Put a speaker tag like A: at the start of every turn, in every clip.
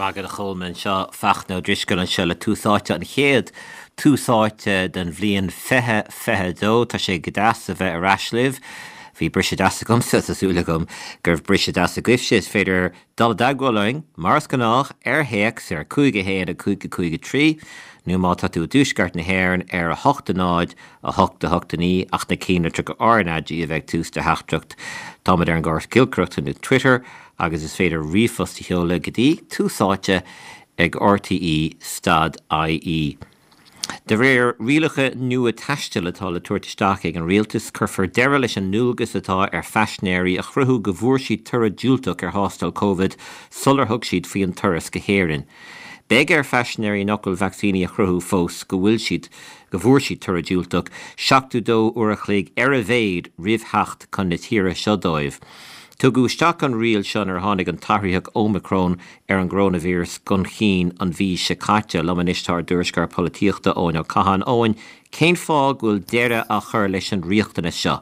A: raibh maith agat a Cholmáin, seo Fachtna Ó Drisceoil anseo le Tús Áite, an chéad Tús Áite den bhliain 2022. Tá sé go deas a bheith ar ais libh. Bhí briseadh deas agamsa, tá súil agam go raibh briseadh deas agaibhse. Is féidir dul i dteagmháil linn, mar is gnách, ar théacs ar 5 1 5 5 3 nó má tá tú i dtuaisceart na hÉireann ar 8 0 8 8 9 ach na cinnlitreacha RnaG a bheith ag tús do theachtaireacht. Táimid ar an gcóras giolcaireachta nó Twitter agus is féidir ríomhphost a sheoladh go dtí tús áite ag rte stad ie. De réir rialacha nua taistil atá le tabhairt isteach ag an rialtas, cuirfear deireadh leis an ndualgas atá ar phaisinéirí a chruthú go bhfuair siad toradh diúltach ar thástáil Covid sular thug siad faoi an turas go hÉirinn. Beidh ar phaisinéirí nach bhfuil vacsaínithe a chruthú fós go bhfuil siad go bhfuair siad toradh diúltach 72 uair a chloig ar a mhéad roimh theacht chun na tíre seo dóibh. Tugadh isteach an riail seo nuair a tháinig an t-athraitheach Ómicrón ar an gcoróinvíreas chun cinn an mhí seo caite. Liom anois tá ár dtuairisceoir polaitíochta, Eoin Ó Catháin. Eoin, cén fáth go bhfuil deireadh á chur leis an riachtanas seo?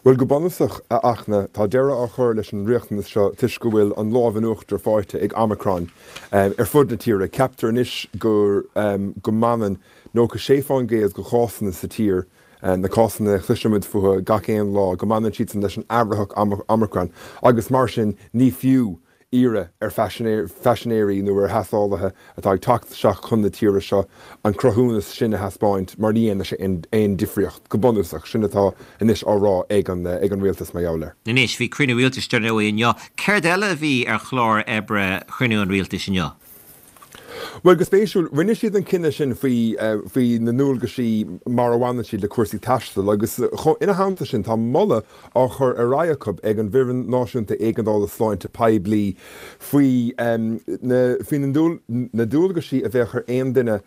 B: Bhuel, go bunúsach, a Fhachtna, tá deireadh á chur leis an riachtanas seo toisc go bhfuil an lámh in uachtar faighte ag Omicron ar fud na tíre. Ceaptar anois go go mbaineann 96% de chásanna sa tír, na cásanna a chloisimid fúthu gach aon lá, go mbaineann siadsan leis an athraitheach Omicron agus mar sin ní fiú iarraidh ar phaisinéirí nó ar thástálaithe atá ag teacht isteach chun na tíre seo an cruthúnas sin a thaispeáint mar ní dhéanfaidh sé aon difríocht, go bunúsach. Sin atá anois á rá ag an rialtas mar gheall air.
A: Anois, bhí cruinniú rialtais dar ndóigh inniu. Céard eile a bhí ar chlár oibre chruinniú an rialtais inniu?
B: Bhuel, go spéisiúil, rinne siad an cinneadh sin faoi faoi na ndualgaisí mar a bhaineann siad le cúrsaí taistil agus ina theannta sin tá moladh á chur ar aghaidh acu ag an bhFoireann Náisiúnta Éigeandála Sláinte Poiblí faoi na faoi na dualgaisí a bheadh ar aon duine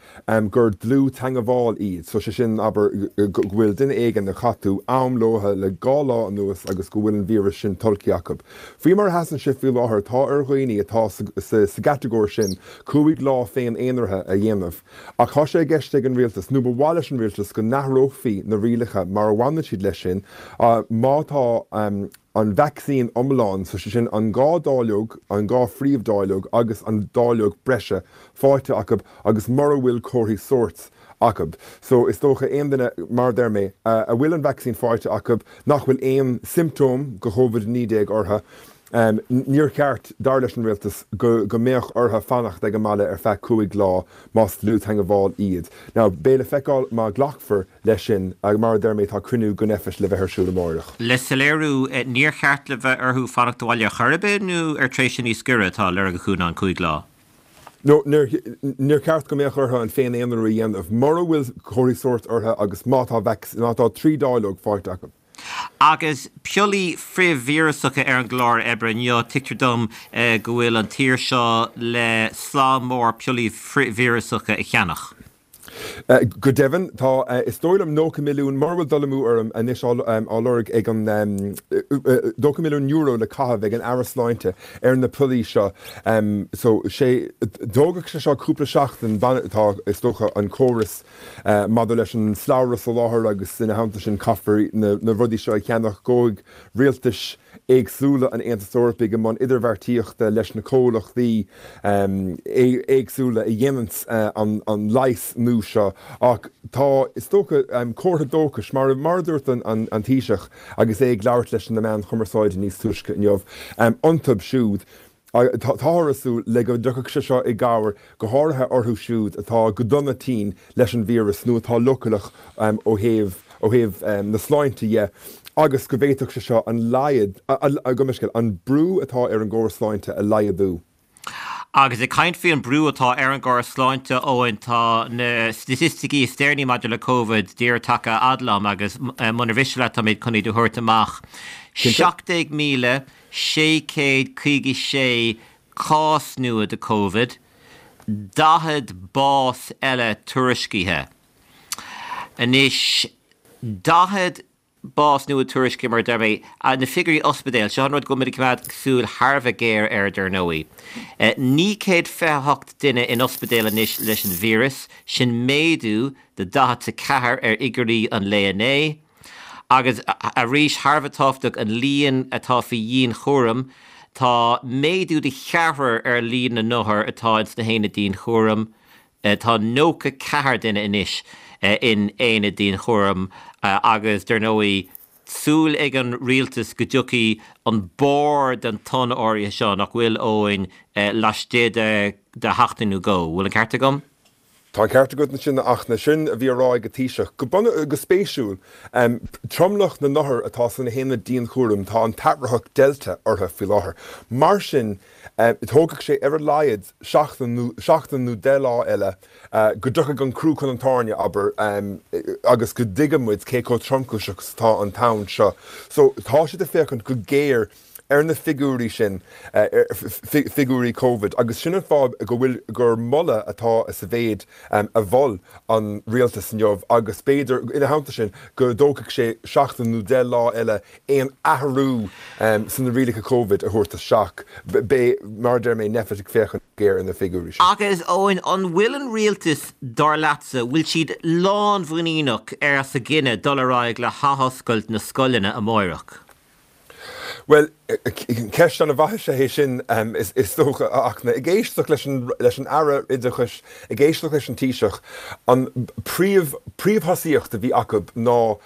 B: gur dlúth-teangmháil iad, so sé sin, abair, go bhfuil duine éigin a chaith tú am leo le 2 lá anuas agus go bhfuil an víreas sin tolgtha acu. Faoi mar a sheasann sé faoi láthair, tá ar dhaoine atá sa gcatagóir sin 5 lá féin-aonaraithe a dhéanamh. Ach tá sé i gceist ag an rialtas, nó ba mhaith leis an rialtas, go n-athrófaí na rialacha mar a bhaineann siad leis sin má tá an vacsaín iomlán, so sé sin an 2 dáileog, an 2 phríomh-dáileog agus an dáileog breise, faighte acu agus mura bhfuil comharthaí sóirt acu. So is dócha aon duine, mar a deir mé, a bhfuil an vacsaín faighte acu, nach bhfuil aon siomptóm de Covid-19 orthu, níor cheart, dar leis an rialtas, go mbeadh orthu fanacht ag an mbaile ar feadh 5 lá más dlúth-theagmháil iad. Now beidh le feiceáil má ghlacfar leis sin, mar a deir mé, tá cruinniú den Nphet le bheith ar siúl amáireach.
A: Le soiléiriú, níor cheart le bheith orthu fanacht abhaile ar chor ar bith nó ar tréimhse níos giorra atá á lorg acu ná an 5 lá?
B: No, níor cheart go mbeadh orthu an féin-aonarú a dhéanamh mura bhfuil comharthaí sóirt orthu agus má tá má tá 3 dáileog faighte acu.
A: Agus piollaí frithvíreasacha ar an gclár oibre inniu, tuigtear dom go bhfuil an tír seo le slám mór piollaí frithvíreasacha a cheannach.
B: Go deimhin, tá, is dóigh liom, €90 milliún, mura bhfuil dul amú orm anois, á lorg ag an, €90 milliún le caitheamh ag an Aire Sláinte ar na piollaí seo. So, sé, tógfaidh sé seo cúpla seachtain, tá, is dócha, an córas maidir leis an slabhra soláthair agus ina theannta sin caithfear na rudaí seo a cheannach, gabhfaidh rialtais éagsúla an Aontais Eorpaigh i mbun idirbheartaíochta leis na comhlachtaí éagsúla a dhéananns an leigheas nua seo. Ach tá, is dócha, comhartha dóchais, mar a dúirt an Taoiseach agus é ag labhairt leis na meáin chumarsáide níos túisce inniu, iontu siúd. Táthar ag súil le go dtiocfaidh sé seo i gcabhair go háirithe orthu siúd atá go dona tinn leis an víreas nó atá leochaileach ó thaobh ó thaobh na sláinte dhe agus go bhféadfadh sé seo an laghad, gabh mo leithscéal, an brú atá ar an gcóras sláinte a laghdú.
A: Agus ag caint faoi an brú atá ar an gcóras sláinte, Eoin, tá na staitisticí is deireanaí maidir le Covid díreach tagtha a fhad liom agus munar mhiste leat tá mé chun iad a thabhairt amach. 17,000 656 cás nua de Covid, 40 bás eile tuairiscithe. Anois, 40 bás nua tuairiscithe mar a deir mé, na figiúirí ospidéil, seo an rud go bhfuil muid ag coimeád súil thar a bheith géar air dar ndóigh. 928 duine in ospidéal anois leis an víreas, sin méadú de 44 ar fhigiúirí an lae inné. Agus arís, thar a bheith tábhachtach, an líon atá faoi dhianchúram. Tá méadú de cheathrar ar líon na n-othar atá ins na haonaid dianchúraim. Tá 94 duine anois in aonaid dianchúraim agus, dar ndóigh, súil ag an rialtas go dtiocfaidh an barr den tonn áirithe seo, nach bhfuil, Eoin, laistigh de sheachtain nó dhó. Bhfuil an ceart agam?
B: Tá an ceart agat ansin, a Fhachtna. Sin a bhí á rá ag an Taoiseach. Go bunúsach, go spéisiúil, tromlach na n-othar atá sna haonaid dianchúraim, tá an t-athraitheach Delta orthu faoi láthair. Mar sin, tógfaidh sé ar a laghad seachtain nó seachtain nó 10 lá eile go dtiocfaidh an crú chun an tairne, abair, agus go dtuigfidh muid cé chomh tromchúiseach is atá an tonn seo. So, tá siad ag féachaint go géar ar na figiúirí sin, figiúirí Covid, agus sin an fáth go bhfuil, gur moladh atá sa mhéid a mhol an rialtas inniu agus b'fhéidir, ina theannta sin, go dtógfaidh sé seachtain nó 10 lá eile aon athrú sna rialacha Covid a thabhairt isteach. Beidh, mar a deir mé, Nphet ag féachaint go géar ar na figiúirí sin.
A: Agus, Eoin, an bhfuil an rialtas, dar leatsa, bhfuil siad lánmhuiníneach as a gcinneadh dul ar aghaidh le hathoscailt na scoileanna amáireach?
B: Bhuel, ceist an-mhaith is ea é sin, is dócha, a Fhachtna. Ag éisteacht leis an leis an Aire Oideachais, ag éisteacht leis an Taoiseach, an príomh príomhthosaíocht a bhí acu ná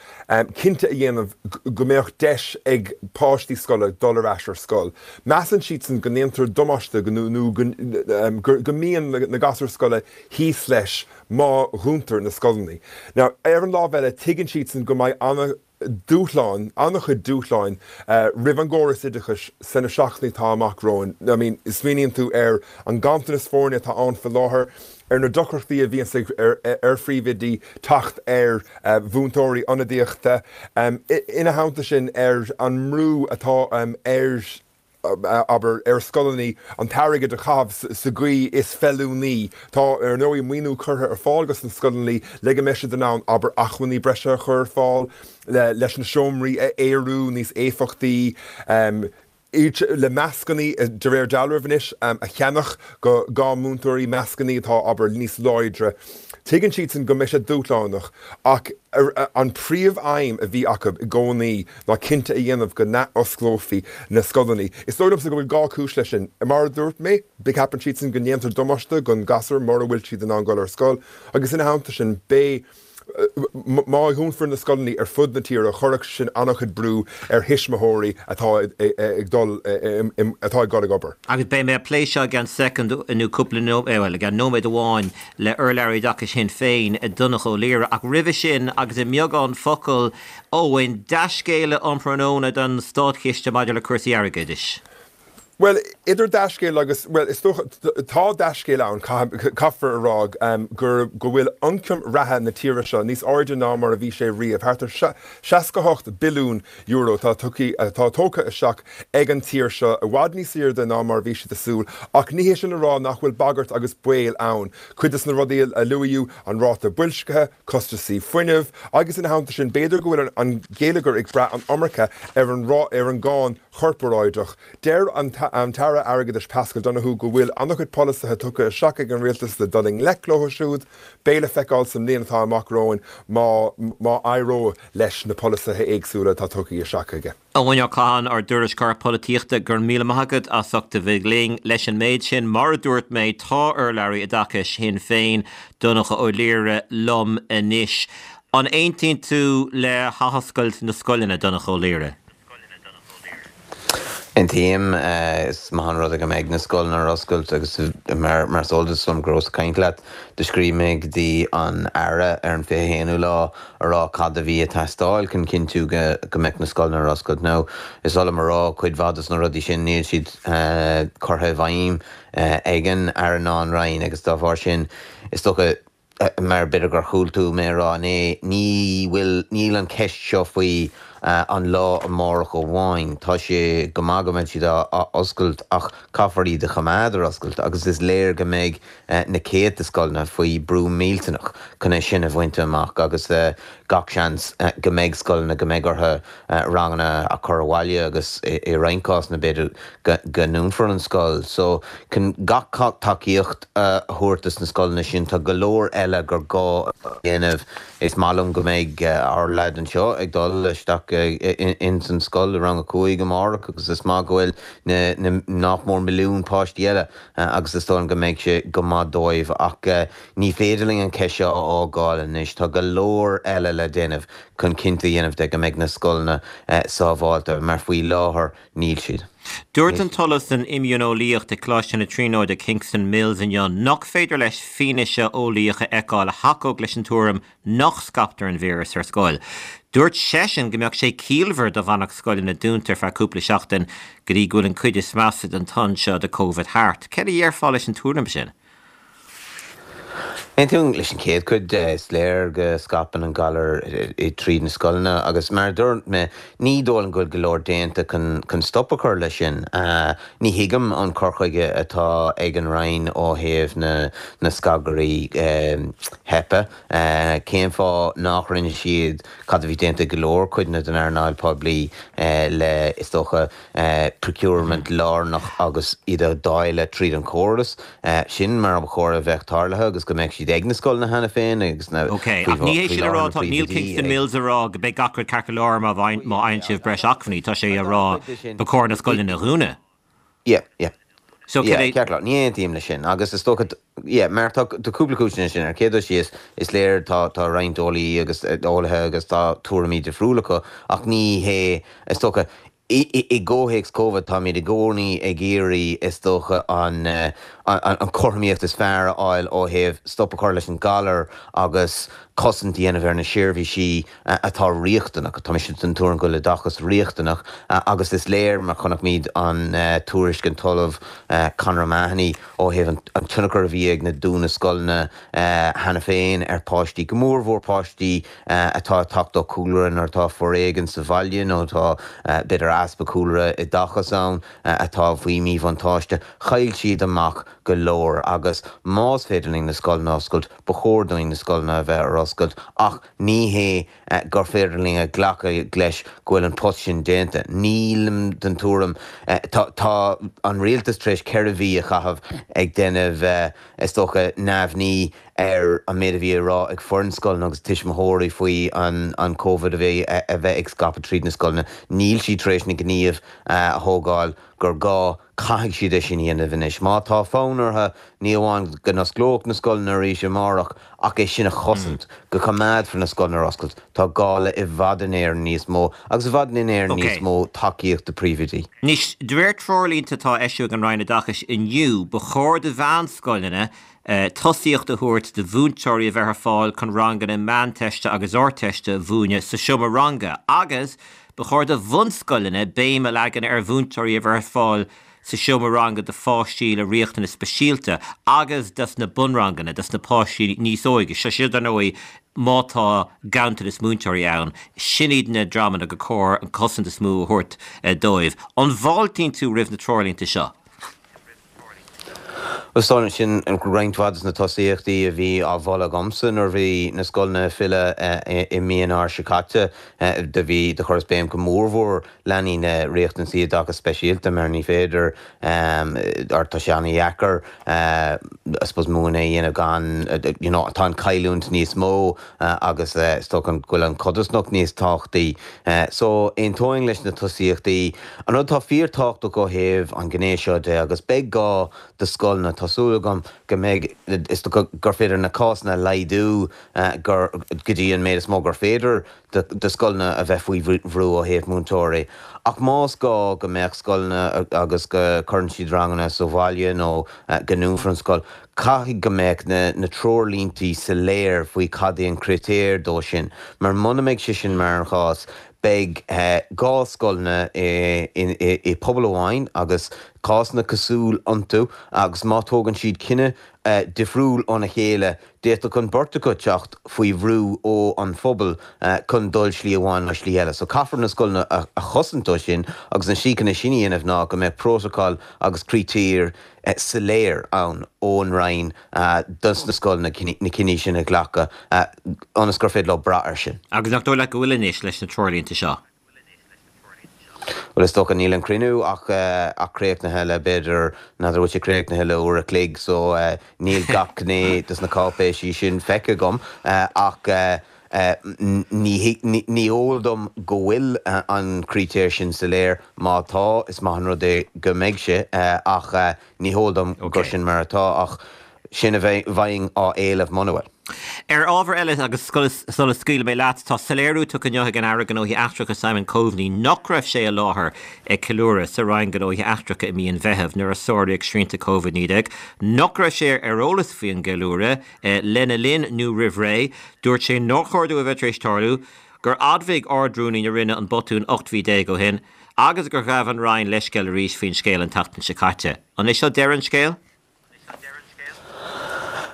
B: cinnte a dhéanamh go mbeadh deis ag páistí scoile dul ar ais ar scoil. Measann siadsan go ndéantar damáiste nó go go mbíonn na gasúir scoile thíos leis má dhúntar na scoileanna. Now, ar an lámh eile, tuigeann siadsan go mbeidh ana dúshláin, an-chuid dúshláin roimh an gcóras oideachais sna seachtainí atá amach romhainn. I mean, smaoiníonn tú ar an ganntanas foirne atá ann faoi láthair, ar na deacrachtaí a bhíonns ag ar phríomhoidí teacht ar mhúinteoirí ionadaíochta, ina theannta sin ar an mbrú atá ar abair, ar scoileanna an t-airgead a chaitheamh sa gcaoi is feiliúnaí. Tá, ar ndóigh, maoiniú curtha ar fáil dos na scoileanna le go mbeidh siad in ann, abair, acmhainní breise a chur ar fáil, leis na seomraí a aerú níos éifeachtaí, le mascannaí, de réir dealraimh anois, a cheannach do múinteoirí, mascannaí atá, abair, níos láidre. Tuigeann siadsan go mbeidh sé dúshlánach ach an príomh-aidhm a bhí acu i gcónaí ná cinnte a dhéanamh go n-athosclófaí na scoileanna. Is dóigh liomsa go bhfuil gá cúis leis sin. Mar a dúirt mé, ceapann siadsan go ndéantar damáiste don ghasúr mura bhfuil siad in ann dul ar scoil agus ina theannta sin beidh, má dhúnfar na scoileanna ar fud na tíre chuirfeadh sin an-chuid brú ar thuismitheoirí atá ag dul atá ag dul ag obair.
A: Agus beidh mé ag plé seo i gceann soicind nó cúpla nóiméad, bhuel, i gceann nóiméad amháin le urlabhraí oideachais Shinn Féin, Donncha Ó Laoghaire. Ach roimhe sin, agus i mbeagán focal, Eoin, dea-scéala um thráthnóna don státchiste maidir le cúrsaí airgeadais.
B: Bhuel, idir dea-scéal agus, bhuel, is dócha, tá dea-scéal ann, caithfear a rá, gur, go bhfuil ioncam reatha na tíre seo níos airde ná mar a bhí sé riamh, thart ar €68 billiún atá tugtha, atá tógtha isteach ag an tír seo, i bhfad níos airde ná mar a bhí siad ag súil, ach ní hé sin a rá nach bhfuil bagairt agus baol ann. Cuid de na rudaí a luaíodh, an ráta boilscithe, costasaí fuinnimh, agus ina theannta sin, b'fhéidir go bhfuil an geilleagar ag brath an iomarca ar an ar an gcáin chorparáideach. Deir an tAire Airgeadais Paschal Donohoe go bhfuil an-chuid polasaithe tugtha isteach ag an rialtas le dul i ngleic leo siúd. Beidh le feiceáil sa mbliain atá amach romhainn má má éireoidh leis na polasaithe éagsúla atá tugtha isteach aige.
A: Eoin Ó Catháin, ár dtuairisceoir polaitíochta, go raibh míle maith agat as ucht a bheith linn leis an méid sin. Mar a dúirt mé, tá urlabhraí oideachais Shinn Féin, Donncha Ó Laoghaire, liom anois. An aontaíonn tú le hathoscailt na scoileanna, Donncha Ó Laoghaire?
C: Aontaím. Is maith an rud é go mbeidh na scoileanna ar oscailt agus mar is eol duit, dom go rabhas ag caint leat, do scríobh mé go dtí an Aire ar an 21ú lá a rá cad a bhí ag teastáil chun cinntiú go mbeadh na scoileanna ar oscailt. Now, is oth liom a rá, cuid mhaith dos na rudaí sin, níl siad curtha i bhfeidhm ag an Aire ná an Roinn agus dá bharr sin, is dócha, mar b'fhéidir gur chuala tú mé a rá inné, ní bhfuil, níl an cheist seo faoi an lá amárach amháin. Tá sé go maith go mbeidh siad á oscailt ach caithfear iad a choimeád ar oscailt agus is léir go mbeidh na céadta scoileanna faoi brú millteanach chun é sin a bhaint amach agus gach seans go mbeidh scoileanna go mbeidh orthu ranganna a chur abhaile agus i roinnt cásanna b'fhéidir go ndúnfar an scoil. So chun gach tacaíocht a thabhairt dos na scoileanna sin tá go leor eile gur gá a dhéanamh. Is maith liom go mbeidh ár leaid anseo ag dul isteach. amárach ins an scoil i rang a 5 amárach agus is maith go bhfuil na nach mór milliún páistí eile agus is dóigh liom go mbeidh sé go maith dóibh ach ní féidir linn an cheist seo a fhágáil anois. Tá go leor eile le déanamh chun cinnte a dhéanamh de go mbeidh na scoileanna sábháilte mar faoi láthair níl siad.
A: Dúirt an tOllamh san Imdhíoneolaíocht ag Coláiste na Tríonóide Kingston Mills inniu nach féidir leis fianaise eolaíoch a fheiceáil a thacódh leis an tuairim nach scaiptear an víreas ar scoil. Dúirt seisean go mbeadh sé ciallmhar dá bhfanfadh scoileanna dúnta ar feadh cúpla seachtain go dtí go bhfuil an cuid is measa den tonn seo de Covid thart. Céard a dhéarfá leis an tuairim sin?
C: Aontaím leis an chéad chuid de. Is léir go scaipeann an galar tríd na scoileanna agus mar a dúirt mé, ní dóigh liom go bhfuil go leor déanta chun stop a chur leis sin. Ní thuigim an cur chuige atá ag an Roinn ó thaobh na scagairí HEPA. Cén fáth nach rinne siad cad a bhí déanta ag go leor cuideanna den earnáil poiblí le, is dócha, procurement lárnach agus iad a dháileadh tríd an chóras. Sin mar ba chóir a bheadh tarlaithe agus go mbeadh siad ag na scoileanna cheana féin agus na
A: Ok, ach ní hé sin a rá, tá, níl Kingston Mills a rá go mbeidh gach rud ceart go leor má fhaigheann sibh breis acmhainní, tá sé a rá ba chóir na scoileanna a dhúnadh.
C: Yeah, yeah. So yeah, ceart go leor, ní aontaím leis sin agus is dócha, yeah, mar tá cúpla cúiseanna sin. Ar chéad dul síos, is léir tá tá roinnt eolaí agus eolaithe agus tá tuairimí difriúla acu ach ní hé, is dócha, i gcomhthéacs Covid táimid i gcónaí ag iarraidh, is dócha, an an chothromaíocht is fearr a fháil ó thaobh stop a chur leis an galar agus cosaint a dhéanamh ar na seirbhísí atá riachtanach. Tá mise den tuairim go bhfuil oideachas riachtanach agus is léir mar chonaic muid an tuairisc an tOllamh Conor O'Mahony ó thaobh an tionchar a bhí ag na dúnadh scoileanna cheana féin ar pháistí, go mórmhór páistí atá ag teacht ó chúlra nuair atá foréigean sa bhaile nó atá b'fhéidir easpa cúlra oideachais ann atá faoi mhíbhuntáiste. Chaill siad amach go leor agus más féidir linn na scoileanna a oscailt, ba chóir dúinn na scoileanna a bheith ar oscailt ach ní hé gur féidir linn a ghlacadh leis go bhfuil an post sin déanta. Nílim den tuairim, tá tá an rialtas tar éis 4 mhí a chaitheamh ag déanamh is dócha neamhní ar an méid a bhí á rá ag foireann scoileanna agus tuismitheoirí faoi an Covid a bhí a bheith ag scaipeadh tríd na scoileanna. Níl siad tar éis na gníomh a thógáil gur gá. Caithfidh siad é sin a dhéanamh anois. Má tá fonn orthu, ní amháin go n-osclódh na scoileanna arís amárach, ach é sin a chosaint, go coimeádfar na scoileanna ar oscailt, tá gá le i bhfad in Éirinn níos mó, agus i bhfad in Éirinn níos mó tacaíocht do príomhoidí.
A: Anois, de réir treoirlínte atá á eisiú ag an Roinn Oideachais inniu, ba chóir do mheánscoileanna tosaíocht a thabhairt do mhúinteoirí a bheith ar fáil chun ranganna Meánteiste agus Ardteiste a mhúineadh sa seomra ranga agus ba chóir do bhunscoileanna béim a leagan ar mhúinteoirí a bheith ar fáil sa seomra ranga do pháistí le riachtanais speisialta agus dos na bunranganna, dos na páistí níos óige. Seo seo dar ndóigh má tá ganntanas múinteoirí ann, sin iad na dreamanna gur cóir an cosaint is mó a thabhairt dóibh. An bhfáiltíonn tú roimh na treoirlínte seo?
C: Is dóigh liom sin roinnt mhaith de na tosaíochtaí a bhí á mholadh agamsa nuair a bhí na scoileanna ag filleadh i mí Eanáir seo caite. Do bhí, do chuireas béim go mórmhór leanaí le riachtanaisí oideachais speisialta mar ní féidir, or tá sé an-dheacair I suppose múineadh a dhéanamh gan, you know, tá an chailliúint níos mó agus is dócha go bhfuil an chodarsnacht níos tábhachtaí. So, aontóinn leis na tosaíochtaí. An rud atá fíor-tábhachtach ó thaobh an ghné seo de, agus beidh gá do scoileanna, tá súil agam go mbeidh, is dócha gur féidir na cásanna a laghdú go dtí an méid is mó gur féidir do scoileanna a bheith faoi bhrú ó thaobh múinteoirí. Ach más gá go mbeadh scoileanna agus go cuireann siad ranganna sa bhaile nó go ndúnfar an scoil, caithfidh go mbeadh na treoirlíntí soiléir faoi cad é an critéar dó sin, mar muna mbeidh sé sin mar an chás, beidh 2 scoileanna i pobal amháin agus cásanna cosúil iontu agus má tógann siad cinneadh difriúil óna chéile, d'fhéadfadh an beirt acu teacht faoi bhrú ó an phobal chun dul slí amháin nó slí eile. So caithfear na scoileanna a chosaint ó sin agus an slí chun é sin a dhéanamh ná go mbeadh prótacal agus critéir soiléir ann ón Roinn dos na scoileanna na cinní sin a ghlacadh ionas gur féidir leo brath air sin.
A: Agus nach dóigh leat go bhfuil anois leis na treoirlínte seo?
C: Bhuel is dócha níl an cruinniú ach ach críochnaithe le b'fhéidir, n'fheadar bhfuil sé críochnaithe le uair a chloig so níl gach gné dos na cáipéisí sin feicthe agam ach. Ní eol dom go bhfuil an critéar sin soiléir. Má tá, is maith an rud é go mbeidh sé, ach ní heol dom gur sin mar atá. Ach sin a bheinn á éileamh muna bhfuil.
A: Ar ábhar eile, agus sula scaoilfidh mé leat, tá soiléiriú tugtha inniu ag an Aire Gnóthaí Eachtracha Simon Coveney nach raibh sé i láthair ag ceiliúradh sa Roinn Gnóthaí Eachtracha i mí an Mheithimh nuair a sáraíodh srianta Covid-19, nach raibh sé ar eolas faoin gceiliúradh lena linn nó roimh ré. Dúirt sé nár chóir dó a bheith tar éis tarlú, gur admhaigh Ard-Rúnaí na Roinne an botún 18 mhí ó shin agus gur ghabh an Roinn leithscéal arís faoin scéal an tseachtain seo caite. An é seo deireadh an scéil?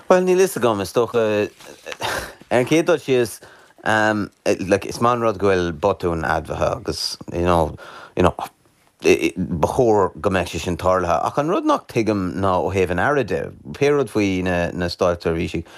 C: Bhuel, níl fhios agam, is dócha, ar an chéad dul síos, like, is maith an rud go bhfuil botún admhaithe agus, you know, you know, ba chóir go mbeadh sé sin tarlaithe. Ach an rud nach tuigim ná ó thaobh an Aire de, pé rud faoi na, na státseirbhísigh,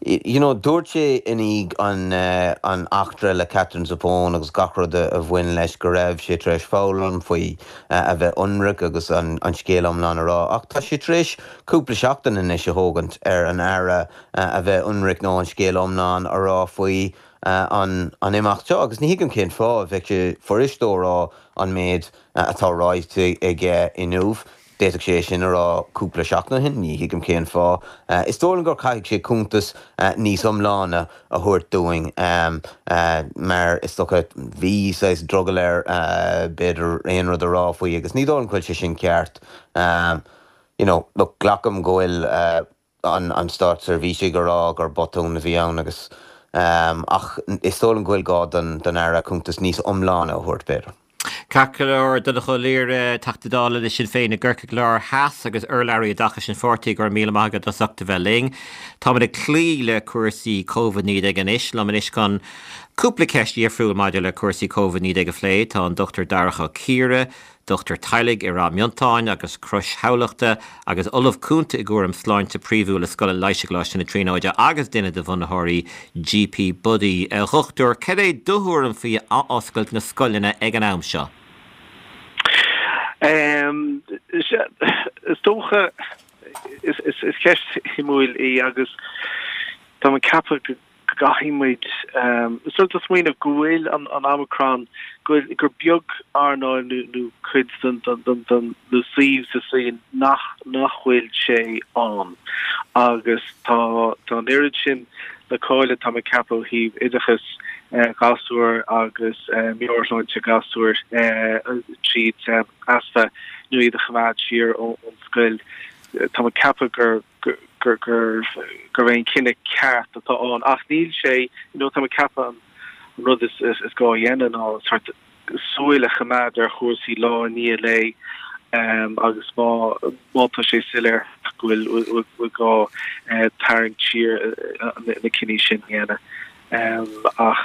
C: you know, dúirt sé i ndiaidh an, an eachtra le Katherine Zappone agus gach rud a bhain leis go raibh sé tar éis foghlaim faoi a bheith ionraic agus an scéal iomlán a rá ach tá sé tar éis cúpla seachtain anois a thógaint ar an Aire a bheith ionraic nó an scéal iomlán a rá faoi an imeacht seo agus ní thuigim cén fáth. Bheadh sé fuirist dó a rá an méid atá ráite aige inniu. D'fhéadfadh sé é sin a rá cúpla seachtain ó shin, ní thuigim cén fáth. Is dóigh liom gur caithfidh sé cuntas níos iomláine a thabhairt dúinn mar is dócha bhí saghas drogall air b'fhéidir aon rud a rá faoi agus ní dóigh liom go bhfuil sé sin ceart. You know, look, glacaim go bhfuil an státseirbhísigh ag rá gur botún a bhí ann agus ach is dóigh liom go bhfuil gá don Aire cuntas níos iomláine a thabhairt b'fhéidir.
A: Ceart go leor, Donnchadh Ó Laoghaire, Teachta Dála le Sinn Féin i gCorcaigh Láir Theas agus urlabhraí oideachais an pháirtí, go raibh míle maith agat as ucht a bheith linn. Táimid ag cloí le cúrsaí Covid-19 anois. Liom anois chun cúpla ceist dhifriúil maidir le cúrsaí Covid-19 a phlé tá an Dr Darach Ó Ciardha, Dochtúir teaghlaigh i Ráth Miontáin agus Crois Thamhlachta agus Ollamh Cúnta i gcúram sláinte príomhúil i Scoil an Leighis i gColáiste na Tríonóide agus duine de bhunaitheoirí GP Buddy. A Dhochtúir, cad é do thuairim faoi athoscailt na scoileanna ag an am
D: seo? Is dócha, is ceist shuimiúil í agus táim ag ceapadh go go gcaithfidh muid sort of smaoineamh go bhfuil an Omicron, go bhfuil, gur beag earnáil nó nó cuid den den den nó suíomh sa saol nach nach bhfuil sé ann agus tá tá an oiread sin le cailleadh tá mé ag ceapadh ó thaobh oideachas gasúr agus meabhairshláinte gasúr tríd easpa nó iad a choimeád siar ón scoil. Tá mé ag ceapadh gur gur gurb é an cinneadh ceart atá ann ach níl sé you know tá mé ag ceapadh an rud is is gá a dhéanamh ná sort súil a choimeád ar chúrsaí lá i ndiaidh lae agus má má tá sé soiléir go bhfuil bhfuil gá tarraingt siar na cinní sin a dhéanamh ach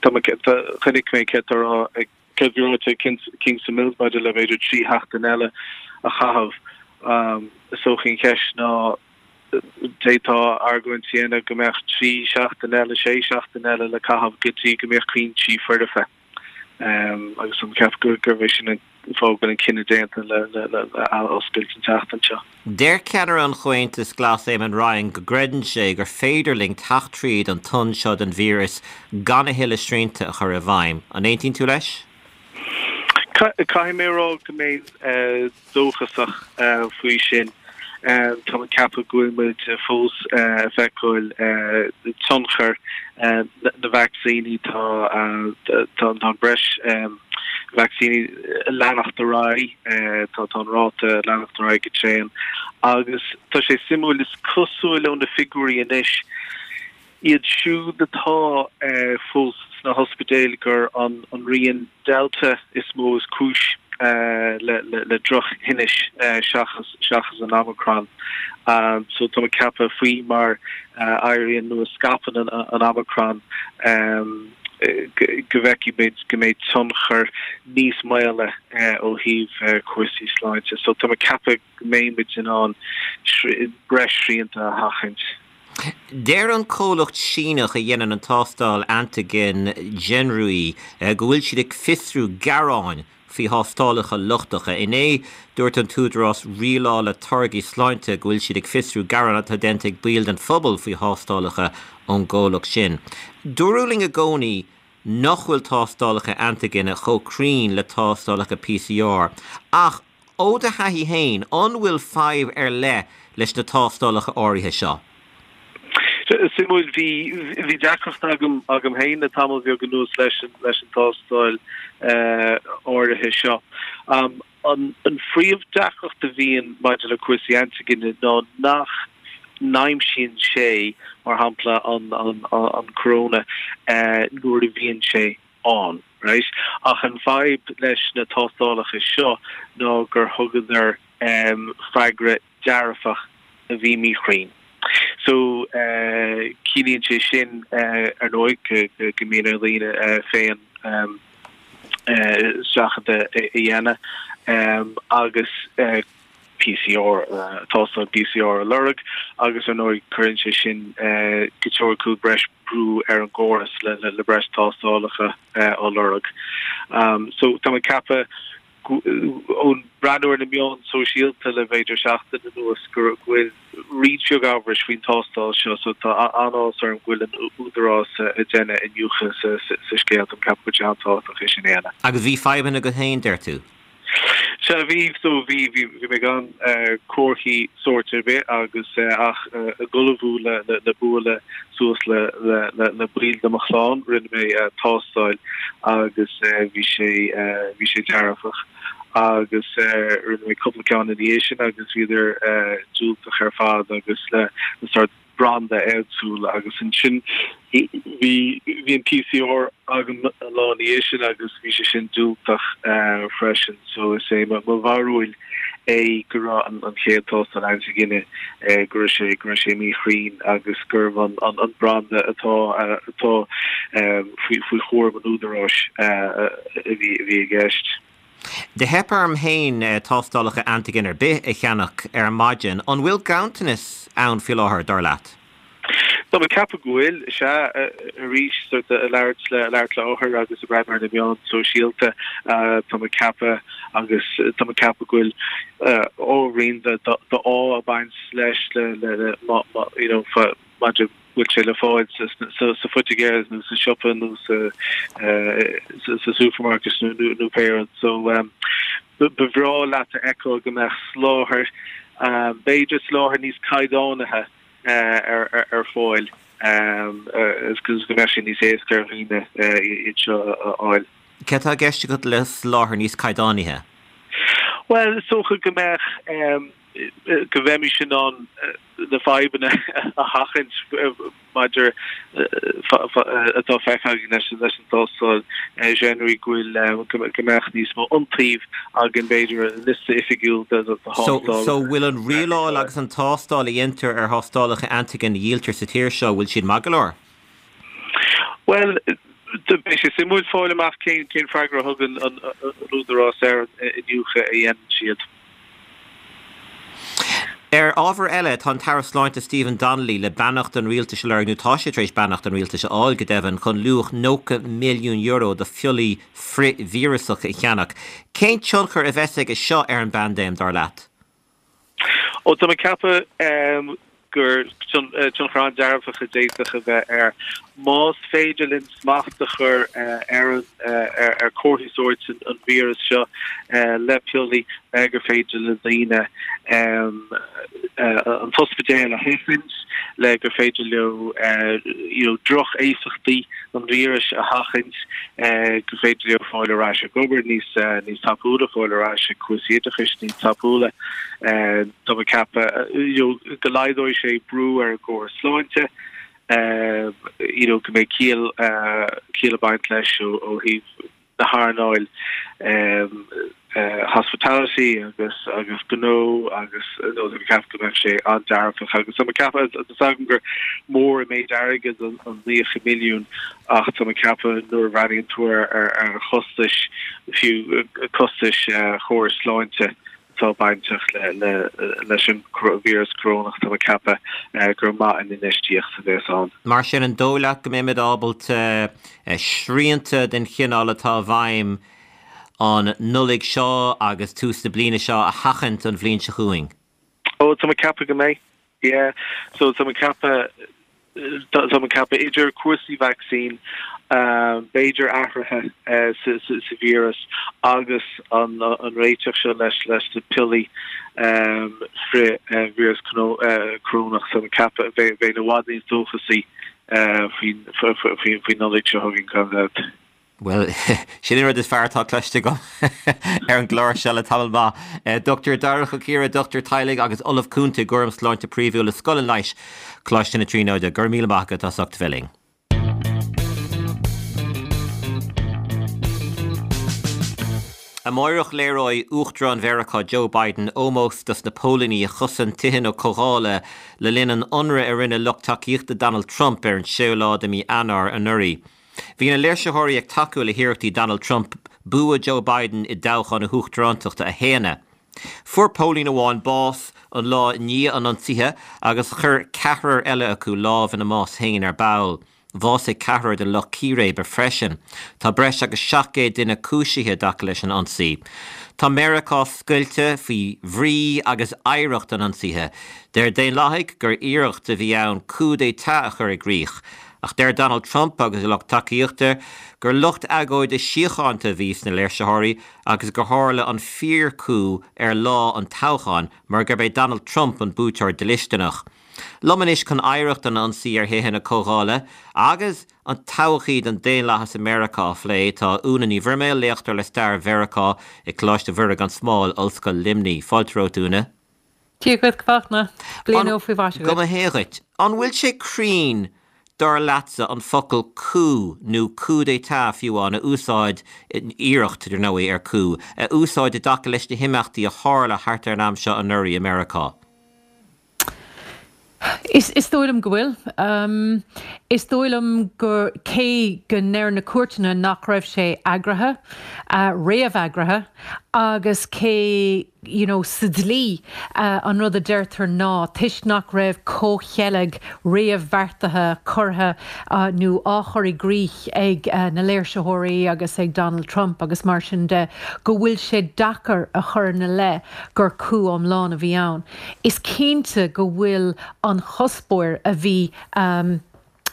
D: tá mé chonaic mé céard tá á rá ag céard a bhí ráite ag Kingston Mills maidir le b'fhéidir 3 sheachtain eile a chaitheamh. Is dócha an cheist ná d'fhéadfá argóint a dhéanamh go mbeadh 3 seachtain eile, 6 seachtain eile le caitheamh go dtí go mbeadh cúinsí foirfe. Agus tá mé ag ceapadh gurb é sin an fáth go bhfuil an cinneadh déanta le athoscailt an tseachtain seo.
A: Deir ceannaire an Chomhaontais Ghlais Eamon Ryan go gcreideann sé gur féidir linn teacht tríd an tonn seo den víreas gan a thuilleadh srianta a chur i bhfeidhm. An aontaíonn tú leis?
D: Caithfidh mé a rá go mbeinn dóchasach faoi sin. Tá mé ag ceapadh go bhfuil muid fós ag feiceáil tionchar na vacsaíní. Tá an breis vacsaíní ag leanacht ar aghaidh, tá an ráta ag leanacht ar aghaidh go tréan agus tá sé suimiúil, is cosúil ó na figiúirí anois, iad siúd atá fós sna hospidéil gur an rian Delta is mó is cúis le drochthinnis seachas seachas an Omicron. So tá mé ag ceapadh faoi mar a éiríonn nó a scaipeann an Omicron, go bhfeicfidh muid go mbeidh tionchar níos maola ó thaobh cúrsaí sláinte. So tá mé ag ceapadh go mbeidh muid in ann breis srianta a sheachaint.
A: Deir an comhlacht Síneach a dhéanann an tástáil antaigin Genrui go bhfuil siad ag fiosrú gearáin. faoi thástálacha lochtacha. Inné, dúirt an tÚdarás Rialála Táirgí Sláinte go bhfuil siad ag fiosrú gearán atá déanta ag baill den phobal faoi thástálacha ón gcomhlacht sin. Dúradh linn i gcónaí nach bhfuil tástálacha antaigine chomh cruinn le tástálacha PCR ach ó do thaithí féin, an bhfuil fadhb ar leith leis na tástálacha áirithe seo?
D: Suimiúil, bhí bhí deacracht agam agam féin le tamall beag anuas leis an leis an tástáil áirithe seo. An an phríomh-deacracht a bhíonn maidir le cúrsaí antaigine ná nach n-aimsíonn sé, mar shampla, an an an corona nuair a bhíonn sé ann, right? Ach an fadhb leis na tástálacha seo ná gur thugadar freagra dearfach a bhí míchruinn. So, ciallaíonn sé sin, ar ndóigh, go mbíonn ar dhaoine féin seachadadh a dhéanamh agus PCR, tástáil PCR a lorg agus ar ndóigh cuireann sé sin go teoiriciúil breis brú ar an gcóras le breis tástálacha á lorg. So tá mé ag ceapadh ón breathnú ar na meáin sóisialta le b'fhéidir seachtain anuas go bhfuil roinnt bheag amhrais faoin tástáil seo so tá an-áthas orm go bhfuil an Údarás ag déanamh iniúchadh sa scéal. Tá mé ag ceapadh go bhfuil sé an-tábhachtach é sin a dhéanamh.
A: Agus bhí fadhbanna agat féin, deir tú?
D: Sea, bhí, so bhí, bhí, bhí mé gan comharthaí sóirt ar bith agus ach ag ullmhú le, le, le bualadh suas le, le, le, le baill de mo chlann, rinne mé tástáil agus bhí sé, bhí sé dearfach agus rinne mé cúpla ceann ina dhiaidh sin agus bhíodar diúltach ar fad agus le, le sórt branda éagsúil agus ansin bhí bhí an PCR agam an lá ina dhiaidh sin agus bhí sé sin diúltach freisin so is é mo bharúil é go raibh an an chéad tástáil antaigine go raibh sé go raibh sé míchruinn agus gurbh an an an branda atá atá faoi faoi chúram an údaráis a bhí a bhí i gceist.
A: Do theip orm féin tástálacha antaigin ar bith a cheannach ar maidin. An bhfuil ganntanas ann faoi láthair, dar leat?
D: Tá mé ag ceapadh go bhfuil, sea. Arís, sort ag labhairt le labhairt le othair agus ag breathnú ar na meáin sóisialta, tá mé ag ceapadh agus tá mé ag ceapadh go bhfuil ábhairín d'ádh ag baint leis le le you know maidir bhfuil sé le fáil sa phoitigéir nó sa siopa nó sa supermarket nó pé rud. So ba bhreá leat a fheiceáil go mbeadh soláthar, b'fhéidir soláthar níos caighdeánaithe ar fáil agus go mbeadh sé níos éasca ar dhaoine iad seo a fháil.
A: Céard atá i gceist agat le soláthar níos caighdeánaithe?
D: Bhuel, is dócha go mbeadh go mbeimis in ann na fadhbanna a sheachaint maidir atá feicthe againn leis an tástáil Genry go bhfuil go mbeadh níos mó iontaoibh againn b'fhéidir liosta oifigiúil de
A: thástálacha. So bhfuil an rialáil agus an tástáil a dhéantar ar thástálacha antaigin a dhíoltar sa tír seo, bhfuil siad maith go leor?
D: Bhuel, beidh sé suimiúil fáil amach cén freagra a thugann an Údarás ar an iniúchadh a dhéanann siad.
A: Ar ábhar eile, tá an tAire Sláinte Stephen Donnelly le beannacht an rialtais a lorg, nó tá sé tar éis beannacht an rialtais a fháil, go deimhin, chun luach €90 milliún de phiollaí frith-víreasacha a cheannach. Cén tionchar a bheas aige seo ar an bpaindéim, dar leat?
D: Ó, tá mé ag ceapadh gur tionchar an-dearfach a d'fhéadfadh a bheith air. Más féidir linn smacht a chur ar an ar chomharthaí sóirt an víreas seo le piollaí, le gur féidir le daoine an t-ospidéal a sheachaint, le gur féidir leo you know droch-éifeachtaí an víris a sheachaint, gur féidir leo fáil ar ais ag obair níos níos tapúla, fáil ar ais ag cúrsaí oideachais níos tapúla. Tá mé ag ceapadh you know go laghdóidh sé brú ar an gcóras sláinte, you know go mbeidh ciall ciall ag baint leis ó ó thaobh na hearnáil hospitality agus agus gnó agus nó tá mé ag ceapadh go mbeadh sé an-dearfach agus tá mé ag ceapadh tá a fhios agam gur mór an méid airgid an 90 milliún ach tá mé ag ceapadh nuair a bhreathnaíonn tú ar ar chostais fiú costais chóras sláinte atá bainteach leis an víreas corónach, tá mé ag ceapadh gur maith an infheistíocht a bheas ann.
A: Mar sin, an dóigh leat go mbeimid ábalta srianta den chineál atá i bhfeidhm? an Nollaig seo agus tús na bliana seo a sheachaint an bhliain seo chugainn?
D: Ó, tá mé ag ceapadh go mbeidh, yeah. So tá mé ag ceapadh, tá mé ag ceapadh idir cúrsaí vacsaín, b'fhéidir athruithe sa víreas agus an réiteach seo leis leis na piollaí frith-víreas corónach, tá mé ag ceapadh bheinn i bhfad níos dóchasaí faoin Nollaig seo chugainn, gan dabht.
A: Bhuel, sin an rud is fearr atá cloiste agam ar an gclár seo le tamall maith. Dr Darach Ó Ciardha, Dochtúir Teaghlaigh agus Ollamh Cúnta i gCúram Sláinte Príomhúil i Scoil an Leighis, Coláiste na Tríonóide. Go raibh míle maith agat as ucht a bheith linn. Amáireach léireoidh Uachtarán Mheiriceá Joe Biden ómós dos na póilíní a chosain tithe na Comhdhála le linn an ionraidh a rinne lucht tacaíochta Donald Trump ar an séú lá de mhí Eanáir anuraidh. Bhí na léirsitheoirí ag tacú le hiarrachtaí Donald Trump bua Joe Biden i dtoghchán na huachtarántachta a shéanadh. Fuair póilín amháin bás an lá i ndiaidh an ionsaithe agus chuir ceathrar eile acu lámh ina mbás féin ar ball. Bhásaigh ceathrar den lucht círéibe freisin. Tá breis agus 700 duine cúisithe i dtaca leis an ionsaí. Tá Meiriceá scoilte faoi bhrí agus oidhreacht an ionsaithe. Deir Daonlathaigh gur iarracht a bhí ann coup d'état a chur i gcrích. Ach deir Donald Trump agus a lucht tacaíochta gur lucht agóide síochánta a bhí sna léirsitheoirí agus gur tharla an fíor-coup ar lá an toghcháin mar gurb é Donald Trump an buaiteoir dlisteanach. Liom anois chun oidhreacht an ionsaí ar thithe na Comhdhála agus an todhchaí don daonlathas i Meiriceá a phlé tá Úna Ní Bhroiméil, léachtóir le stair Mheiriceá i Coláiste Mhuire gan Smál, Ollscoil Luimnigh. Fáilte romhat, Úna.
E: Dia dhuit, a Fhachtna. Bliain nua faoi mhaise
A: dhuit. Go mba hea dhuit. An bhfuil sé cruinn, dar leatsa, an focal coup nó coup d'état fiú amháin a úsáid, iarracht, dar ndóigh, ar coup, a úsáid i dtaca leis na himeachtaí a tharla thart ar an am seo anuraidh i Meiriceá?
E: Is dóigh liom go bhfuil. Is dóigh liom gur, cé go ndeir na cúirteanna nach raibh sé eagraithe, réamheagraithe, agus cé, you know sa dlí, an rud a deirtear ná toisc nach raibh comhcheilg réamhbheartaithe curtha nó á chur i gcrích ag na léirsitheoirí agus ag Donald Trump agus mar sin de, go bhfuil sé deacair a chur ina leith gur coup iomlán a bhí ann. Is cinnte go bhfuil an chuspóir a bhí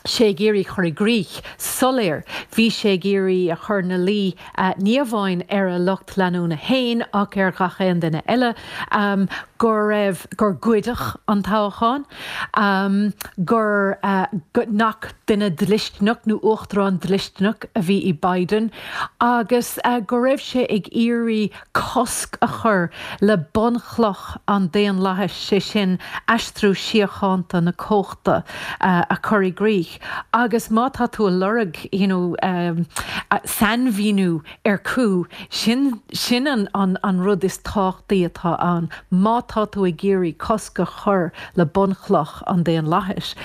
E: sé ag iarraidh chur i gcrích soiléir. Bhí sé ag iarraidh a chur ina luí ní amháin ar a lucht leanúna féin ach ar ghach aon duine eile go raibh, gur goideadh an toghchán, gur, nach duine dlisteanach nó uachtarán dlisteanach a bhí i Biden agus go raibh sé ag iarraidh cosc a chur le bunchloch an daonlathais, sé sin, aistriú síochánta na cumhachta a chur i gcrích. Agus má tá tú ag lorg you know sainmhíniú ar coup, sin sin an an rud is tábhachtaí atá ann. Má tá tú ag iarraidh cosc a chur le bunchloch an daonlathais,